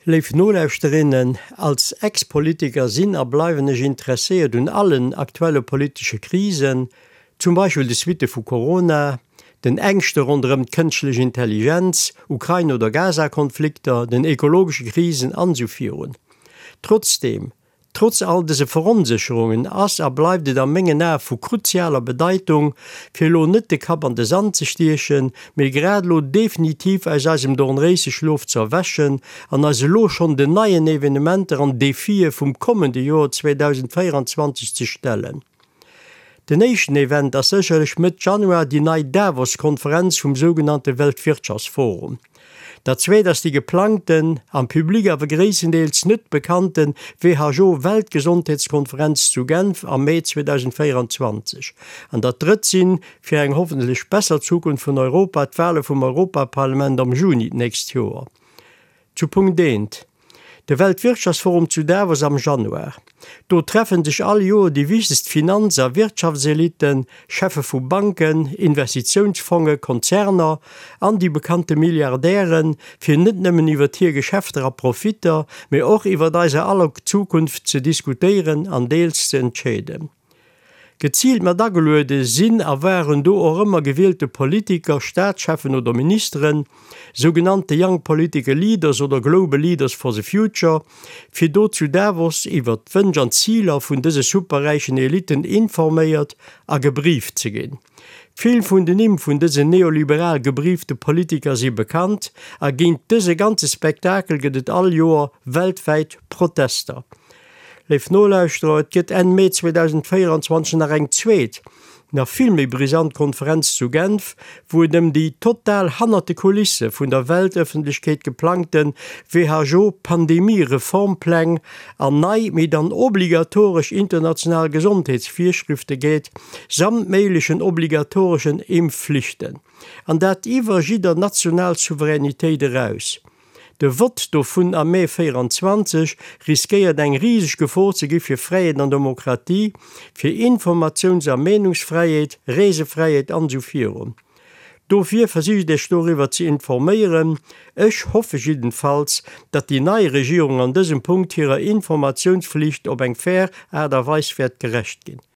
Léif Nolauschterinnen, als Ex-Politiker sinn a bleiwen ech interesséiert un allen aktuelle politesche Krisen, zum Beispill de Suitte vu Corona, den Ängschte ronderëm d'kënschtlech Intelligenz, Ukrain oder Gaza-Konflikter, den ekologesche Krisen an esou virun. Trotzdeem, Trotz all dëse Veronsécherungen ass a bleift et a mengen Ae vu kruzialer Bedeitung, fir elo net de Kapp an de Sand ze stiechen, mee grad elo definitiv aus eisem Dornréiseschlof ze erwächen an eis elo schonn den neien Evenementer an Defie vum kommende Joer 2024 ze stellen. Den éischten Event ass sécherlech Mëtt Januar déi nei Davos-Konferenz vum sougenannte Weltwirtschaftsforum. Dat zweet ass déi geplangten, am Public awer gréisstendeels net bekannten WHO-Weltgesondheetskonferenz zu Genf am Mee 2024. An dat drëtt sinn, fir eng hoffentlech besser Zukunft vun Europa, d'Wale vum Europaparlament am Juni d'nächst Joer. Zu Punkt eent, De Weltwirtschaftsforum zu Davos am Januar. Do treffen sech all Joer déi wichtegst Finanz a Wirtschaftselitten, Cheffe vu Banken, Investitiounsfonge, Konzerner an déi bekannte Milliardären, fir net nëmmen iwwert hir Geschäfter a Profitter, mee och iwwert eiser aller Zukunft ze diskutéieren an deels ze entscheeden. Geziilt mat ageluede sinn a waren do och ëmmer gewielte Politiker, Staatscheffen oder Ministeren, sougenannte Young Political Leaders oder Global Leaders for the Future, fir do zu Davos iwwert d'Wënsch an d'Ziler vun dëse superräichen Elitten informéiert a gebrieft ze ginn. Vill vun den Nimm vun dësen neoliberal gebriefte Politiker si bekannt a géint dëse ganze Spektakel gëtt et all Joer weltwäit Protester. Léif Nolauschterer, et gëtt Enn Mee 2024 nach eng zweet, nach vill méi brisant Konferenz zu Genf, wou et ëm déi total hannert de Kulisse vun der Weltëffentlechkeet geplangte WHO-Pandemie-Reformpläng an nei, mee dann obligatoresch international Gesondheetsvirschrifte geet, samt méiglechen obligatoreschen Impfflichten. An dat iwwer jidder national Souveränitéit eraus. De Vott dovun am Mee 24 riskéiert eng riseg Gefor ze gi fir Fräiheet an Demokratie, fir Informatiouns a Meenungsfräiheet, Reesefräiheet an esou virun. Dofir versicht Iech doriwwer ze informéieren. Ech hoffe jiddenfalls, datt déi nei Regierung an dësem Punkt hirer Informatiounsflicht op eng fair Aart a Weis wäert gerecht ginn.